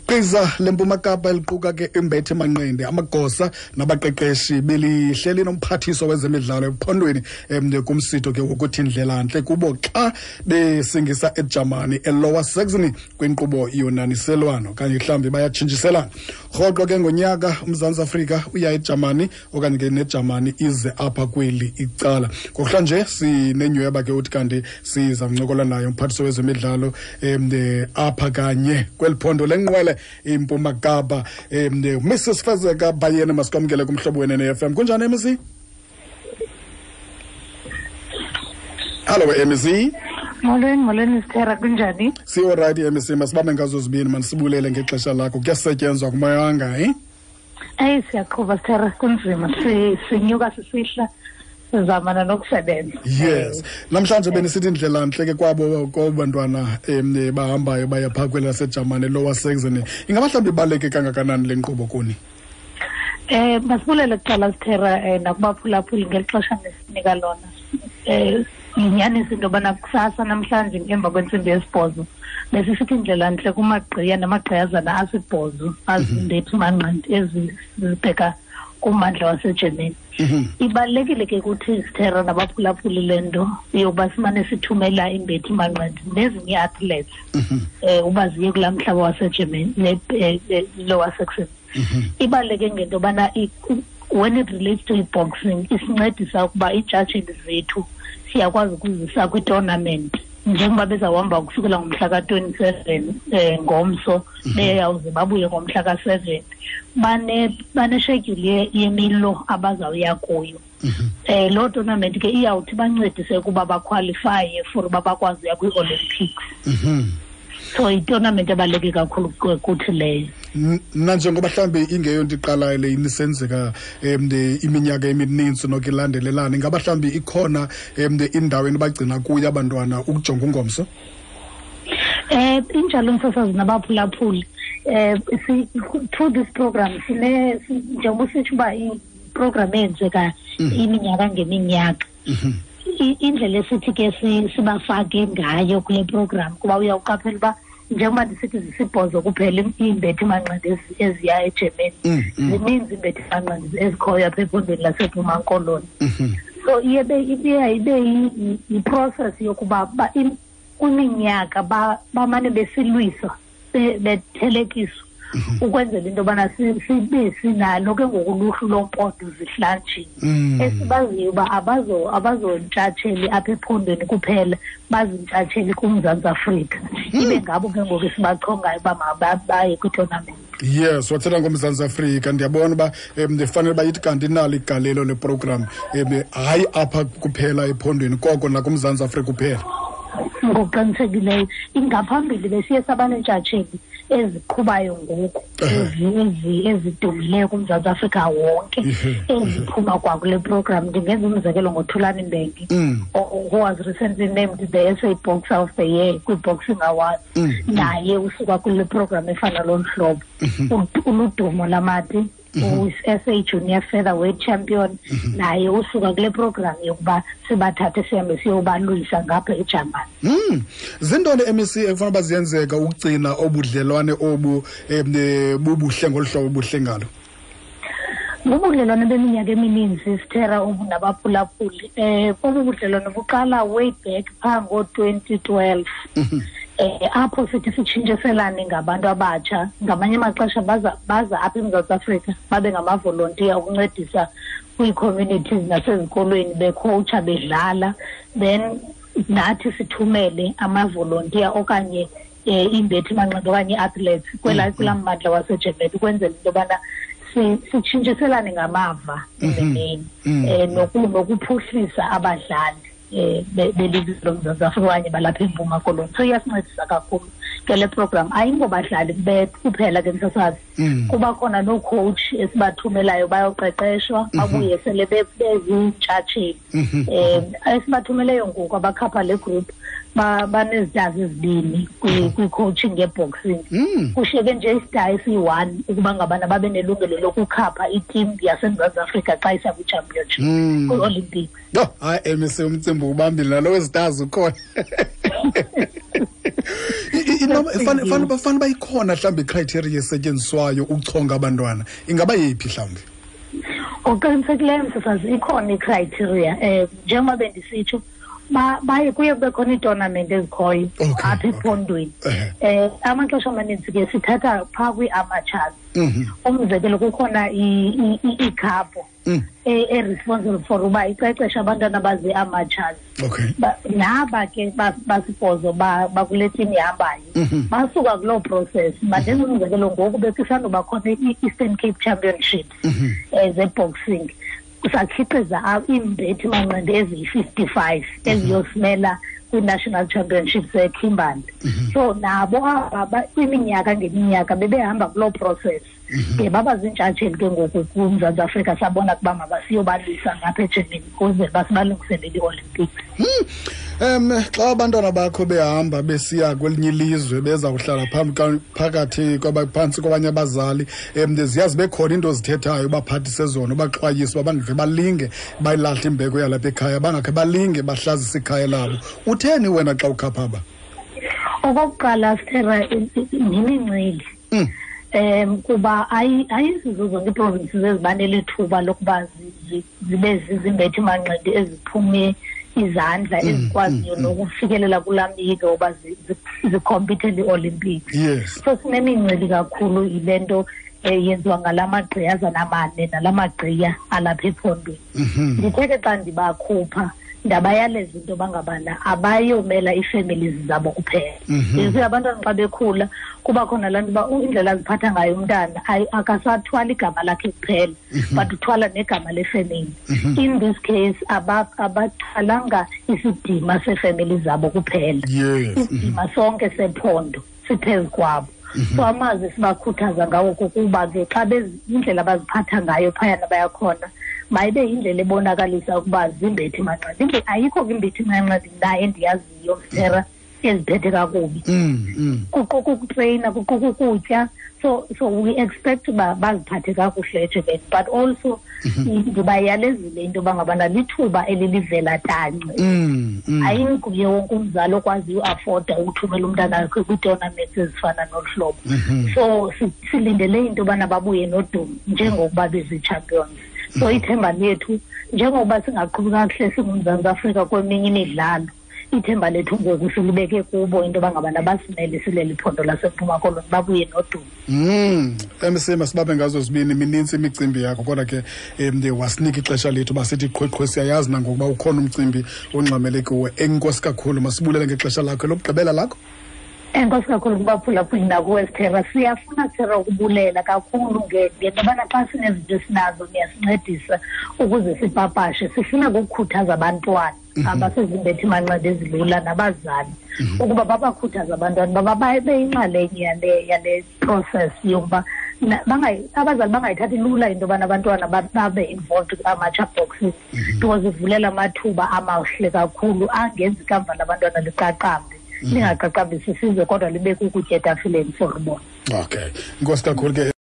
Gqiza leMpuma Kapa eliquka ke imbethe manqindi, amagosa nabaqeqeshi belihleli nomphathiswa wezemidlalo ephondweni kumsitho ke wokuthi ndlelantle kubo xa besingisa eJamani eLower Saxony kwinkqubo yonaniselwano okanye mhlawumbi bayatshintshiselana. Rhoqo ke ngonyaka uMzantsi Afrika uya eJamani okanye ke neJamani ize apha kweli icala. Ngokuhlanje sinenyhweba ke uthi kanti siza kuncokola naye umphathiswa wezemidlalo apha kanye kweli phondo lenqwele iMpuma Kapa, Mrs Fezeka Bayeni. Masikwamkele kumhlobo wenene FM. Kunjani, MEC? Hallo, MEC. Molweni, molweni Sithera, kunjani? Siyorayithi, MEC, masibambe ngazo zibini, manisibulele ngexesha lakho. Kuyasetyenzwa kumayanga, eh? Eyi, siyaqhuba Sithera, kunzima, sinyuka sisihla, sizamana nokusebenza. Yes. Namhlanje benisithi indlela ntle ke kwabo bantwana bahambayo baya phaa kweli laseJamani, Lower Saxony. Ingaba mhlawumbi ibaluleke kangakanani le nkqubo kuni? Masibulele kuqala Sithera, nakubaphulaphuli ngeli xesha nesinika lona. Yinyaniso into yobana kusasa namhlanje emva kwentsimbi yesibhozo besisithi indlela ntle kumagqiya namagqiyazana asibhozo azimbethi manqindi ezibheka kummandla waseGermany. Ibalulekile ke kuthi Sithera nabaphulaphuli le nto yokuba simane sithumela imbethi manqindi nezinye ii-athletes uba ziye kulaa mhlaba waseGermany, Lower Saxony. Ibaluleke ngento yobana when it relates to i-boxing isincedisa ukuba iitshatsheli zethu siyakwazi ukuzisa kwi-tournament njengoba bezawuhamba ukusukela ngomhla ka-27 ngomso, beyawuze babuye ngomhla ka-7. Baneshedyuli yemilo abazawuya kuyo. Loo tournament ke iyawuthi bancedise ukuba bakhwalifaye for uba bakwazi uya kwii-Olympics. So i-tournament ebaluleke kakhulu kuthi leyo. Nanjengoba mhlawumbi ingeyonto iqalayo le, inisenzeka iminyaka emininzi noko ilandelelana, ingaba mhlawumbi ikhona indawo enibagcina kuyo abantwana ukujonga ungomso? Injalo msasazi nabaphulaphuli. Through this program sine, njengoba usitsho uba i-program eyenzeka iminyaka ngeminyaka. Indlela esithi ke sibafake ngayo kule program, kuba uyawuqaphela uba njengoba ndisithi zisibhozo kuphela iimbethi manqindi eziya eGermany, zininzi iimbethi manqindi ezikhoyo apha ephondweni laseMpuma Koloni. So iye ibe yi-process yokuba kwiminyaka bamane besilwiswa, bethelekiswa ukwenzela into yobana sibe sinalo ke ngoku uluhlu loompondo zihlanjini esibaziyo uba abazontshatsheli apha ephondweni kuphela, bazintshatsheli kuMzantsi Afrika. Ibe ngabo ke ngoku esibachongayo uba mabaye kwi-tournament. Yes, wathetha ngoMzantsi Afrika, ndiyabona uba ndifanele uba ithi kanti inalo igalelo le program, hayi apha kuphela ephondweni koko nakuMzantsi Afrika kuphela. Ngokuqinisekileyo. Ingaphambili besiye sabaneentshatsheli eziqhubayo ngoku ezidumileyo kuMzantsi Afrika wonke eziphuma kwakule program. Ndingenza umzekelo ngoThulani Mbenge, who was recently named the SA Boxer of the Year kwi-Boxing Awards. Naye usuka kule program efana lolu hlobo. Uludumo Lamati, u-SA Junior Featherweight Champion, naye usuka kule program yokuba sibathathe sihambe siyobalwisa ngapha eJamani. Zintoni, MEC, ekufanele uba ziyenzeka ukugcina obudlelwane obu bubuhle ngolu hlobo buhle ngalo? Bubudlelwane beminyaka emininzi Sithera obunabaphulaphuli. Obu budlelwane buqala way back phaa ngo-2012. Apho sithi sitshintshiselane ngabantu abatsha. Ngamanye amaxesha baza apha eMzantsi Afrika babe ngamavolontiya ukuncedisa kwii-communities nasezikolweni, bekhowutsha, bedlala, then nathi sithumele amavolontiya okanye iimbethi manqindi okanye ii-athletes kulaa mmandla waseGermany ukwenzela into yobana sitshintshiselane ngamava emeni, nokuphuhlisa abadlali belizwe loMzantsi Afrika okanye balapha eMpuma Koloni. So iyasincedisa kakhulu ke le program. Ayingobadlali kuphela ke msasazi, kuba khona noo-coach esibathumelayo bayoqeqeshwa, babuye sele beziintshatsheli. Esibathumeleyo ngoku abakhapha le group banezitazi ezibini kwi-coaching ye-boxing. Kushiyeke nje istar esiyi-1 ukuba ngabana babe nelungelo lokukhapha i-team yaseMzantsi Afrika xa isa kwi-championship, kwi-Olympics. Yho, hayi, MEC, umcimbi ubambile nalo wezitazi ukhona. Fanele uba ikhona mhlawumbi icriteria esetyenziswayo ukuchonga abantwana, ingaba yeyiphi mhlawumbi? Ngokuqinisekileyo, msasazi, ikhona icriteria. Njengoba bendisitsho, baye kuye kube khona iitournament ezikhoyo apha ephondweni. Amaxesha amaninzi ke sithatha phaa kwii-amateurs. Umzekelo, kukhona iikhapho e-responsible for uba iqeqeshe abantwana abazi-amateurs. Naba ke basibhozo bakule team ihambayo basuka kuloo process. Mandenze umzekelo, ngoku bekusandoba khona i-Eastern Cape Championships ze-boxing, sakhiqiza iimbethi manqindi eziyi-55 eziyosimela kwi-national championships eKimberley. So nabo aba kwiminyaka ngeminyaka bebehamba kuloo process ke, baba ziintshatsheli ke ngoku kuMzantsi Afrika. Sabona ukuba mabasiyobalwisa ngapha eGermany ukuze basibalungiselele i-Olympics. Xa abantwana bakho behamba besiya kwelinye ilizwe, beza kuhlala phambi phakathi phantsi kwabanye abazali, ziya zibe khona into ozithethayo ubaphathise zona, ubaxwayise uba bangakhe balinge bayilahle imbeko yalapha ekhaya, bangakhe balinge bahlazise ikhaya labo. Utheni wena xa ukhapha aba? Okokuqala, Sithera, yimincili kuba ayizizo zonke iiprovinces ezibanele thuba lokuba zibe zizimbethi manqindi eziphume izandla, ezikwaziyo nokufikelela kulaa myike woba zikhompithele ii-Olympics. So sinemincili kakhulu yile nto yenziwa ngala magqiyazana mane nala magqiya alapha ephondweni. Ndithe ke xa ndibakhupha, ndabayaleza into yoba ngabana abayomela ii-families zabo kuphela. You see, abantwana xa bekhula kuba khona laa nto uba indlela aziphatha ngayo umntana, akasathwali igama lakhe kuphela, but uthwala negama lefemeli. In this case abathwalanga isidima seefemeli zabo kuphela, isidima sonke sephondo siphezu kwabo. So amazwi sibakhuthaza ngawo kukuba ke xa indlela abaziphatha ngayo phayana bayakhona, mayibe yindlela ebonakalisa ukuba zimbethi manqindi. Ayikho ke imbethi manqindi mna endiyaziyo, Msera, eziphethe kakubi. Kuquka ukutreyina, kuquka ukutya. So we expect uba baziphathe kakuhle eGermany, but also ndibayalezile into yoba ngabana lithuba elilivela tanci. Ayinguye wonke umzali okwaziyo uafforda ukuthumela umntana wakhe kwii-tournaments ezifana nolu hlobo. So silindele into yobana babuye nodumo njengokuba bezii-champions. So ithemba lethu, njengokuba singaqhubi kakuhle singuMzantsi Afrika kweminye imidlalo, ithemba lethu ngoku silibeke kubo into yoba ngabana basimele sileli phondo laseMpuma Koloni, babuye nodumo. MC, masibambe ngazo zibini. Minintsi imicimbi yakho, kodwa ke wasinika ixesha lethu basithi qhweqhwe. Siyayazi nangokuba ukhona umcimbi ongxamele kuwe. Enkosi kakhulu, masibulele ngexesha lakho lokugqibela lakho. Enkosi kakhulu kubaphulaphuli nakuwe, Sithera. Siyafuna, Sithera, ukubulela kakhulu ngento yobana xa sinezinto esinazo niyasincedisa ukuze sipapashe. Sifuna ukukhuthaza abantwana abasezimbethi manqindi ezilula nabazali ukuba babakhuthaze abantwana baba babe yinxalenye yale process yokuba abazali bangayithathi lula into yobana abantwana babe involved kwi-amateur boxing, because ivulela amathuba amahle kakhulu angenza ikamva labantwana liqaqambe, lingaqaqambisi isizwe kodwa libe kukutya etafileni for bona. Okay, inkosi kakhulu ke.